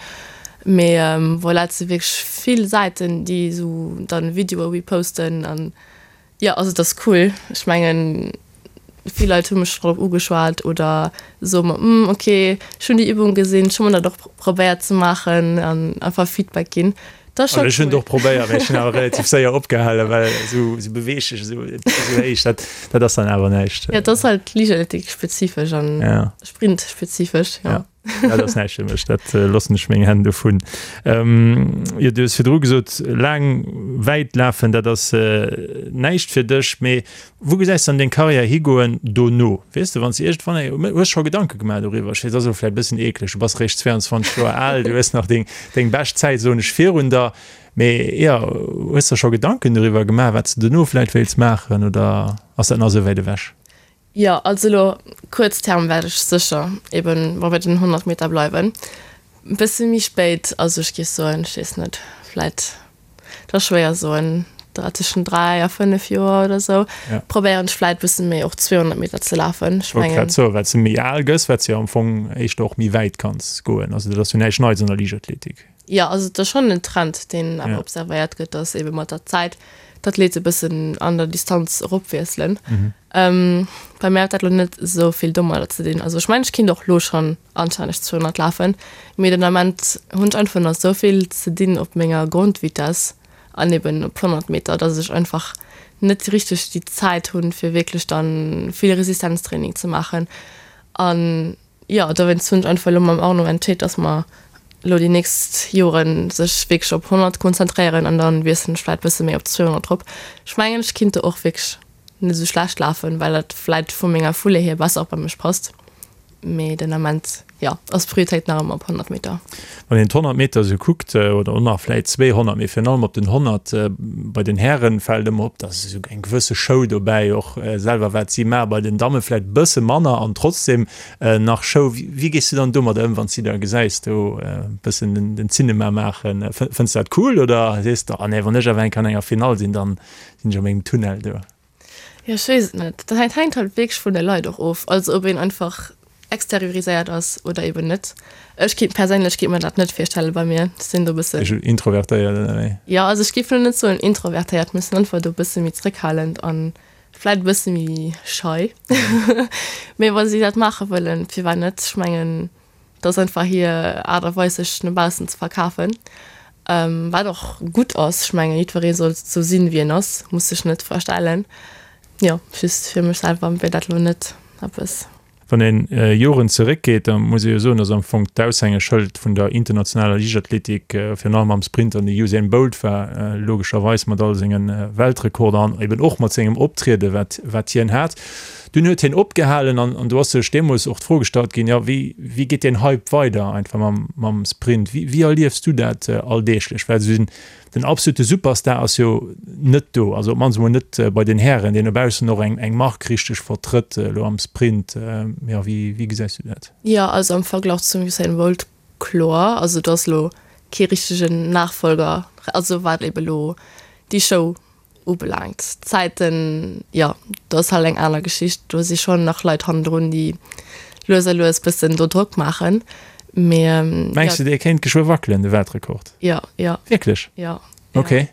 Mee voilà, et si wierklech vill Säiten déi esou dann Videoe reposten an Jo, also et ass cool. Ech mengen, vill Leit hu mech drop ugeschwat oder soe mer, Hm, ok, ech hunn déi Übung gesinn, ech hu mer dat och probéiert ze maachen an einfach Feedback ginn. Dat ass scho cool. Ech hunn et och probéiert, mee ech hunn awer relativ séier opgehalen, well esou esou beweeglech, esou esou héich, dat dat ass dann awer näischt. Jo, et ass halt Liichtathletik-spezifesch an Sprint-spezifesch, jo. Dat ass näischt fir mech, dat loossen ech meng Hänn dovun. Jo, du hues virdru gesot, laang wäit lafen, dat ass näischt fir dech. Mee wou gesäis de dann deng Karriär higoen dono? Weess de, wann s de iergendwann eng, hues scho Gedanke gemaach doriwwer? Ech weess, dat ass elo vläicht e bëssen eekleg, du bass réischt 22 Joer al, du hues nach deng, deng bescht Zäit, soen ech, virun der. Mee jo, hues der scho Gedanken doriwwer gemaach, wat s de dono vläicht wéilts maachen oder ass dat nach esou wäit ewech? Jo, also elo kuerz Term wäert ech sécher eben bei den 100 Meter bleiwen. E bësse méi spéit, also ech géif soen, ech weess net, vläit, dat ass schwéier soen, tëschent 3 a 5 Joer oder esou, probéieren ech vläit e bësse méi och 200 Meter ze lafen. Ech mengen. Wollt grad soen, wat s de méi al gëss, wat s de jo am Fong éischter och méi wäit kanns goen. Also dat ass jo näischt Neits an der Liichtathletik. Jo, also et ass schonn en Trend, deen awer observéiert gëtt, datt ebe mat der Zäit d'Athlete e bëssen an der Distanz eropwiesselen. Bei mär huet dat elo net esou vill domadder ze dinn. Also ech mengen, ech kinnt och elo schonn anstänneg 200 lafen, mee den Ament hunn ech einfach nach esou vill ze dinn op menger Grondvitess an eben op 100 Meter, datt ech einfach net richteg déi Zäit hunn, fir wierklech dann vill Resistenztraining ze maachen. An Jo, dowéinst hunn ech einfach elo mam Arno entscheet, dass mer elo déi nächst Joren sech wierklech op 100 konzentréieren an dann wiesselen ech vläit bësse méi op 200 drop. Ech mengen, ech kinnt do och wierklech net esou schlecht lafen, well dat vläit vu menger Foulée hier besser och bei mech passt. Mee den Ament, jo, ass d'Prioritéit nach ëmmer op 100 Meter. Wann een d'Honnert Meter esou kuckt, oder och nach vläit 200, mee virun allem op den 100 bei den Hären, fält ëmmer op, dass esou eng gewësse Show dobäi, och selwer wat si maachen, bei den Damme vläit e bësse manner an trotzdem nach Show. Wéi gees du dann domadder ëm, wann s de da gesäis do e bëssen den Zinema maachen? Fënns de dat cool oder sees de, oh nee, wann ech awer eng Kéier an enger Finall sinn, dann sinn ech a mengem Tunnel do? Jo, ech weess et net. Dat hänkt halt wierklech vun de Leit och of. Also ob een einfach exterioriséiert ass oder eben net. Ech kéint perséinlech kéint mer dat net virstelle bei mir. Ech sinn do e bëssen. Esch introvertéiert oder wéi? Jo, also ech géif elo net soen introvertéiert, mee ech sinn einfach do e bësse méi zréckhalend an vläit e bësse méi schei. Mee wa si dat maache wëllen, firwat net? Ech mengen, Dat ass einfach hir Aart a Weis sech no baussen ze verkafen, wat och gutt ass. Ech mengen jiddweree soll sou sinn wéi en ass, muss sech net verstellen. Jo, just fir mech selwer wier dat elo net eppes. Wann een Joren zeréckgeet, da muss ee jo soen, datt am Fong d'Aushängeschëld vun der internationaler Liichtathletik virun allem am Sprint dann de Usain Bolt war, logescherweis mat all senge Weltrekorder an eben och mat sengem Optriede wat wat hien hat. Dunn huet hien opgehalen an an do ass sech deemools och d'Fro gestallt ginn, jo wéi wéi geet deen Hype weider einfach mam mam Sprint? Wéi wéi erliefs du dat alldeeglech? Well esou den den absolute Superstar ass jo net do, also op d'mannst emol net bei den Hären, deen no baussen och eng eng Mark richteg vertrëtt elo am Sprint. Jo wéi wéi gesäis du dat? Jo, also am Verglach zum Usain Bolt kloer, also do ass elo kee richtegen Nachfolger, also wat ebe lo déi Show ubelaangt. D'Zäiten, jo, do ass halt eng aner Geschicht. Do si schonn nach Leit hannendrun, déi lues a lues bëssen do Drock maachen. Mee jo. Mengs de, dee kéint geschwë wackelen, de Weltrekord? Jo, jo. Wierklech? Jo. Ok.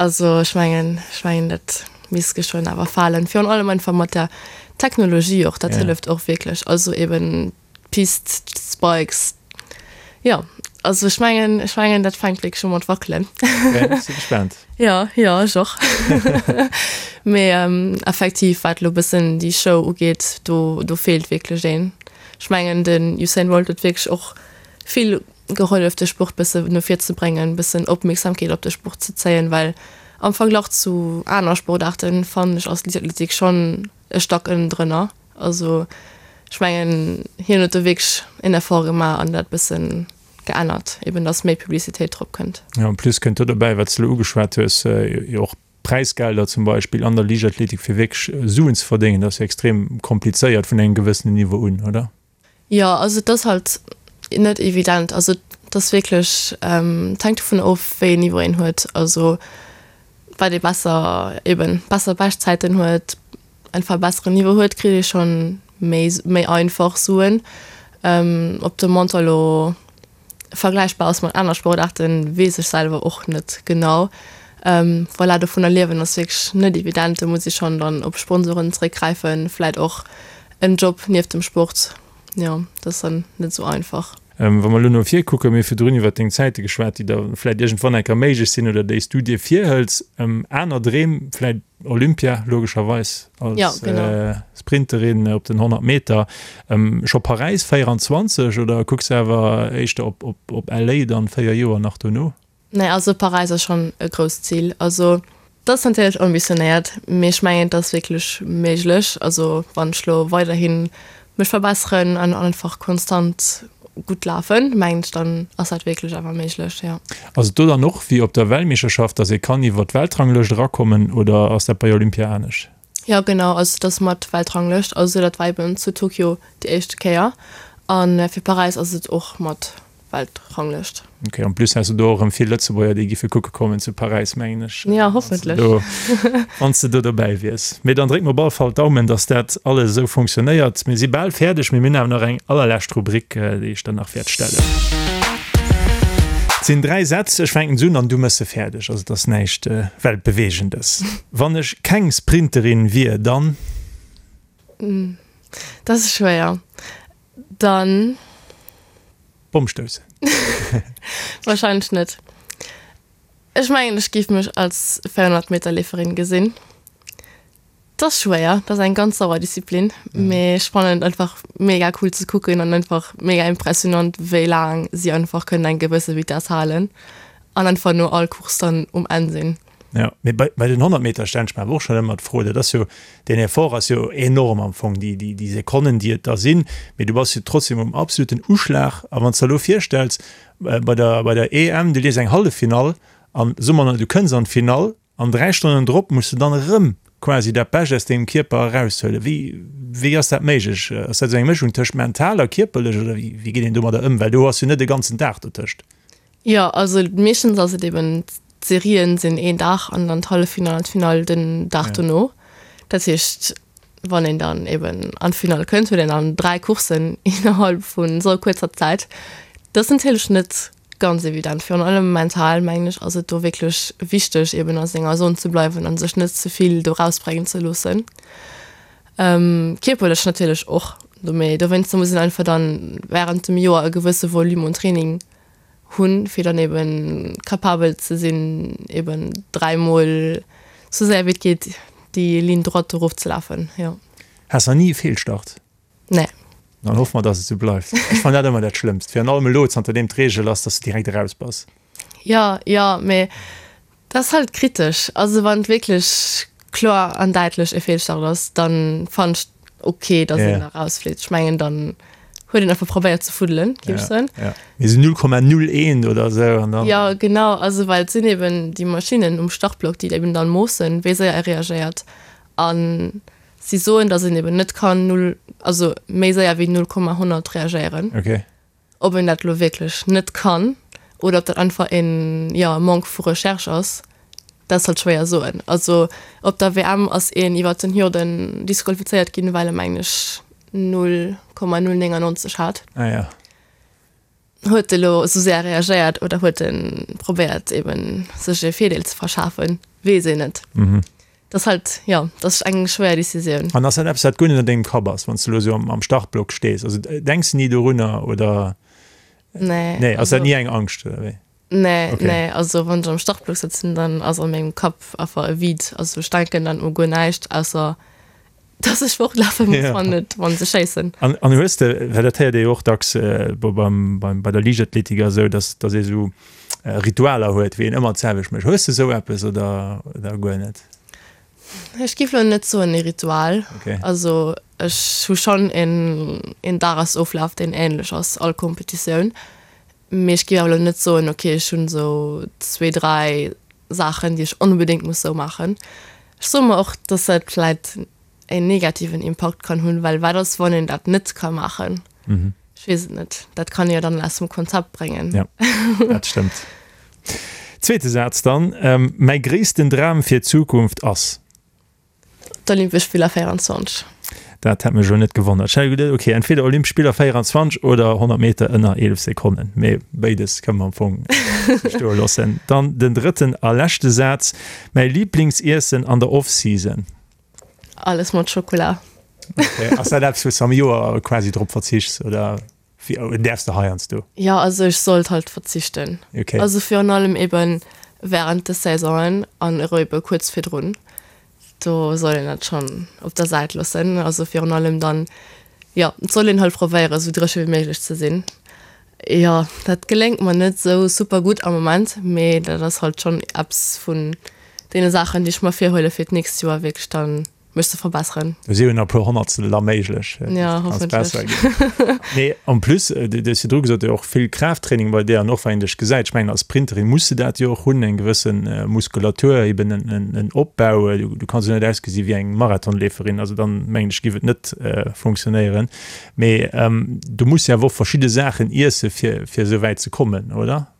Also ech mengen, ech mengen, dat misst geschwënn awer falen. Virun allem einfach mat der Technologie och, dat hëlleft och wierklech. Also eben D'Pist, d'Spikes, jo, also ech mengen, ech mengen dat fänkt wierklech u mat wackelen. Ok, si gespaant. Jo, jo, ech och. Mee effektiv, wat elo bëssen déi Show ugeet, do, do feelt wierklech een. Ech mengen den Usain Bolt huet wierklech och vill gehollef de Sport bësse no vir ze bréngen, bëssen Opmierksamkeet op de Sport ze zéien, well am Verglach zu aner Sportaarten fannen ech ass Liichtathletik schonn e Stack ënnendrënner. Also. Ech mengen, hien huet do wierklech en Effort gemaach an dat bëssen geännert, eben dass méi Publicitéit drop kënnt. Jo, en plus kënnt do dobäi, wat s de elo ugeschwat hues, jo och Präisgelder zum Beispill an der Liichtathletik, fir wierklech Suen ze verdéngen, dat ass jo extrem komplizéiert vun engem gewëssenen Niveau un, oder? Jo, also et ass halt net evident. Also et ass wierklech, et hänkt dovun of, wéi een Niveau een huet. Also wat ee besser, eben besser Beschtzäiten huet, einfach e besseren Niveau huet, kritt ee schonn méi méi einfach Suen. Ob de Montant elo vergläichbar ass mat aner Sportaarten, weess ech selwer och net genau. Voilà, dovunner liewen ass wierklech net evident. Do muss ee schonn dann op Sponsoren zeréckgräifen, vläit och en Job nieft dem Sport. Jo, dat ass dann net esou einfach. Wa mer elo no vir kucken, mir hu virdrun iwwert deng Zäite geschwat, déi da vläit iergendwann eng Kéier méiglech sinn oder déi s du dir virhëls. Aner Dreem vläit Olympia logescherweis als ja, genau. Sprinterin op den 100 Meter. Scho Paräis 24 oder kucks de awer éischter op, op, op LA dann 4 Joer nach dono? Nee, also Paräis ass schonn e grousst Zil. Also dat ass natierlech ambitionéiert, mee ech mengen et ass wierklech méiglech. Also wann ech lo weiderhi mech verbesseren an einfach konstant gutt lafen, mengen ech, dann ass dat wierklech awer méiglech, jo. Ass et do dann och wéi op der Weltmeeschterschaft, dass ee kann iwwer d'Weltranglëscht erakommen oder ass dat bei Olympia anescht? Jo genau, also et ass mat Weltranglëscht, also dat war eben zu Tokio déi éischte Kéier a fir Paräis ass et och mat Weltranglëscht. Ok, en plus has de do och erëm vill Lëtzebuerger, déi giffe kucke kommen zu Paräis, mengen ech. Ja, hoffentlech. Wann s de do dobäi wiers. Mee dann dréck mer op alle Fall d'Daumen, dass dat alles esou funktionéiert. Mir si bal fäerdeg, mee mir hunn awer nach eng allerlescht Rubrik, déi ech der nach wäert stellen. Et sinn 3 Sätz, ech fänken se un an du méchs se fäerdeg. Also et ass näischt Weltbewegendes. Wann ech keng Sprinterin wier, dann. Dat ass schwéier. Dann. Bomm stoussen. Wahrscheinlech net. Ech mengen ech géif mech als 400 Meter Leeferin gesinn. Dat ass schwéier, dat ass eng ganz sauer Disziplin, mee ech fannen et einfach mega cool ze kucken an einfach mega impressionant wéi laang si einfach kënnen eng gewësse Vitesse halen an einfach no all Course dann um Enn sinn. Jo, mee bei, bei den 100 Meter stellen ech mer awer och schonn ëmmer d'Fro, dat ass jo, deen Effort ass jo enorm am Fong, déi, déi, déi Sekonnen, déi et da sinn, mee du bass jo trotzdem um absoluten Uschlag. A wann s de der elo virstells, bei der, bei der EM, du leefs eng Halleffinall an soe mer, du kënns an d'Finall an 3 Stonnen drop muss de dann erëm quasi dat Bescht aus dengem Kierper eraushuelen. Wéi, wéi ass dat méiglech? Ass dat esou eng Mëschung tëscht mental a kierperlech oder wéi, wéi geet een domadder ëm? Well do ass jo net e ganzen Dag dotëscht. Jo, also meeschtens ass et eben, d'Serien sinn een Dag an dann d'Halleffinall an d'Finall den Dag dono. Dat heescht, wann een dann eben an d'Finall kënnt, huet een dann 3 Courssen innerhalb vu sou kuerzer Zäit. Dat ass natierlech net ganz evident. Virun allem mental, mengen ech, ass et do wierklech wichteg, eben a senger Zon ze bleiwen a sech net ze vill do rausbréngen ze loossen. Kierperlech natierlech och, mee dowéinster muss een einfach dann wärend dem Joer e gewësse Volume un Training hunn, fir dann eben capabel ze sinn, eben dräimol sou séier wéi et geet déi Ligne droite erof ze lafen, jo. Has nach ni e Feelstart? Nee. Dann hoffe mer, dass et sou bleift. Ech fannen dat ëmmer dat Schlëmmst, virun allem elo, zanter deem d'Reegel ass, dass de direkt eraus bass. Jo, jo, mee Dat ass halt kritesch. Also wann et wierklech kloer an däitlech e Feelstart ass, dann fannen ech ok, dass een da rausflitt. Ech mengen dann huet een einfach probéiert ze fuddelen, géif ech soen. Ja, mee sou 0,01 oder sou an dann. Jo, genau. Also well et sinn eben déi Maschinnen um Startblock, déi eben dann moossen, wéi séier e reagéiert. An si soen, dass een eben net kann null, also méi séier wéi 0,100 reagéieren. Ok. Ob een dat elo wierklech net kann oder ob dat einfach een, jo, Manque vu Recherche ass, dat ass halt schwéier soen. Also op der WM ass een iwwert den Hürden disqualifizéiert ginn, well e mengen ech 0,099 hat. Ah ja. Huet e lo esou séier reagéiert oder huet e probéiert eben sech e Virdeel ze verschafen, weess een net. Dat ass halt, jo, dat ass eng schwéier Decisioun. An ass dat eppes, wat guer net an dengem Kapp ass, wann s de elo esou am Startblock stees? Also denks de ni dorunner oder? Nee. Nee, ass dat ni eng Angscht oder wéi? Nee, nee, also wann ech am Startblock sëtzen, dann ass a mengem Kapp einfach e Vide. Also ech denken dann u guer näischt, ausser dass ech fortlafe muss, wann et, wann se schéissen. An, an hues de, well dat héiert ee jo och dacks beim, beim, bei der Liichtathletik a sou, dass, dass ee sou Ritualer huet, wéi een ëmmer d'selwecht mécht. Hues de sou eppes oder, oder guer net? Ech géif elo net soen e Ritual. Okay. Also. Ech hu schonn een, een Dagesoflaf, deen änlech ass all Competitioun. Mee ech géif awer elo net soen, ok, ech hunn esou zwee, dräi Saachen, déi ech onbedéngt muss esou maachen. Ech soe mer och, dass dat vläit een negativen Impakt kann hunn, well wat ass, wann een dat net ka maachen? Ech weess et net. Dat kann ee jo dann aus dem Konzept bréngen. Ja, dat stëmmt. Zweete Saz dann, Mäi gréissten Dram fir d'Zukunft ass. D'Olympesch Spiller 24. Dat hätt mech elo net gewonnert. Ech hat geduet, okay, entweder Olympesch Spiller 24 oder 100 Meter ënner 11 Sekonnen. Mee béides kënne mer am Fong stoe loossen. Dann den drëtten a leschte Saz, Mäi Liblingsiessen an der Off-Season. Alles mat Schokola. Okay. Ass dat eppes, wou s de am Joer quasi drop verzichts oder wéi däerfs de heiansdo? Jo, also ech sollt halt verzichten. Okay. Also virun allem eben während de Saisonen an ero ebe kuerz virdrun. Do soll een dat schonn op der Säit loossen. Also virun allem dann, jo, et soll een halt probéieren, esou dréche wéi méiglech ze sinn. Jo, dat geléngt mer net esou super gutt am Moment, mee dat ass halt schonn eppes vun deene Saachen, déi ech mer virhuele fir d'nächst Joer wierklech dann mech ze verbesseren. Do si jo nach e puer Honnertstel da méiglech. Ja, hoffentlech. Mee en plus, du hues virdru gesot, jo och vill Kraafttraining bei dir an och wann een dech gesäit, ech mengen als Sprinterin muss de dat jo och hunn, eng gewësse Muskulatur, eben en Opbau. Du kanns jo net ausgesi wéi eng Marathonleeferin, also dann mengen ech giff et net funktionéieren. Mee du muss jo awer och verschidde Saachen iesse fir fir esou wäit ze kommen, oder?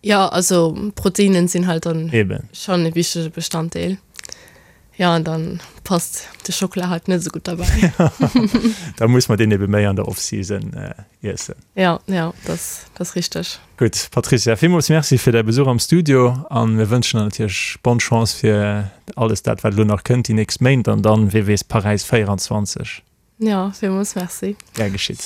Jo, also Proteinen sinn halt dann Eben. schonn e wichtege Bestanddeel. Jo, an dann passt de Schockela halt net esou gutt derbäi. Da muss mer deen ebe méi an der Off-Season iessen. Jo, jo, dat ass richteg. Gutt, Patricia, villmools Merci fir däi Besuch am Studio an mir wënschen der natierlech bonne Chance fir alles dat, wat elo nach kënnt déi nächst Méint an dann, wee weess, Paräis 24. Jo, villmools Merci. Gär geschitt.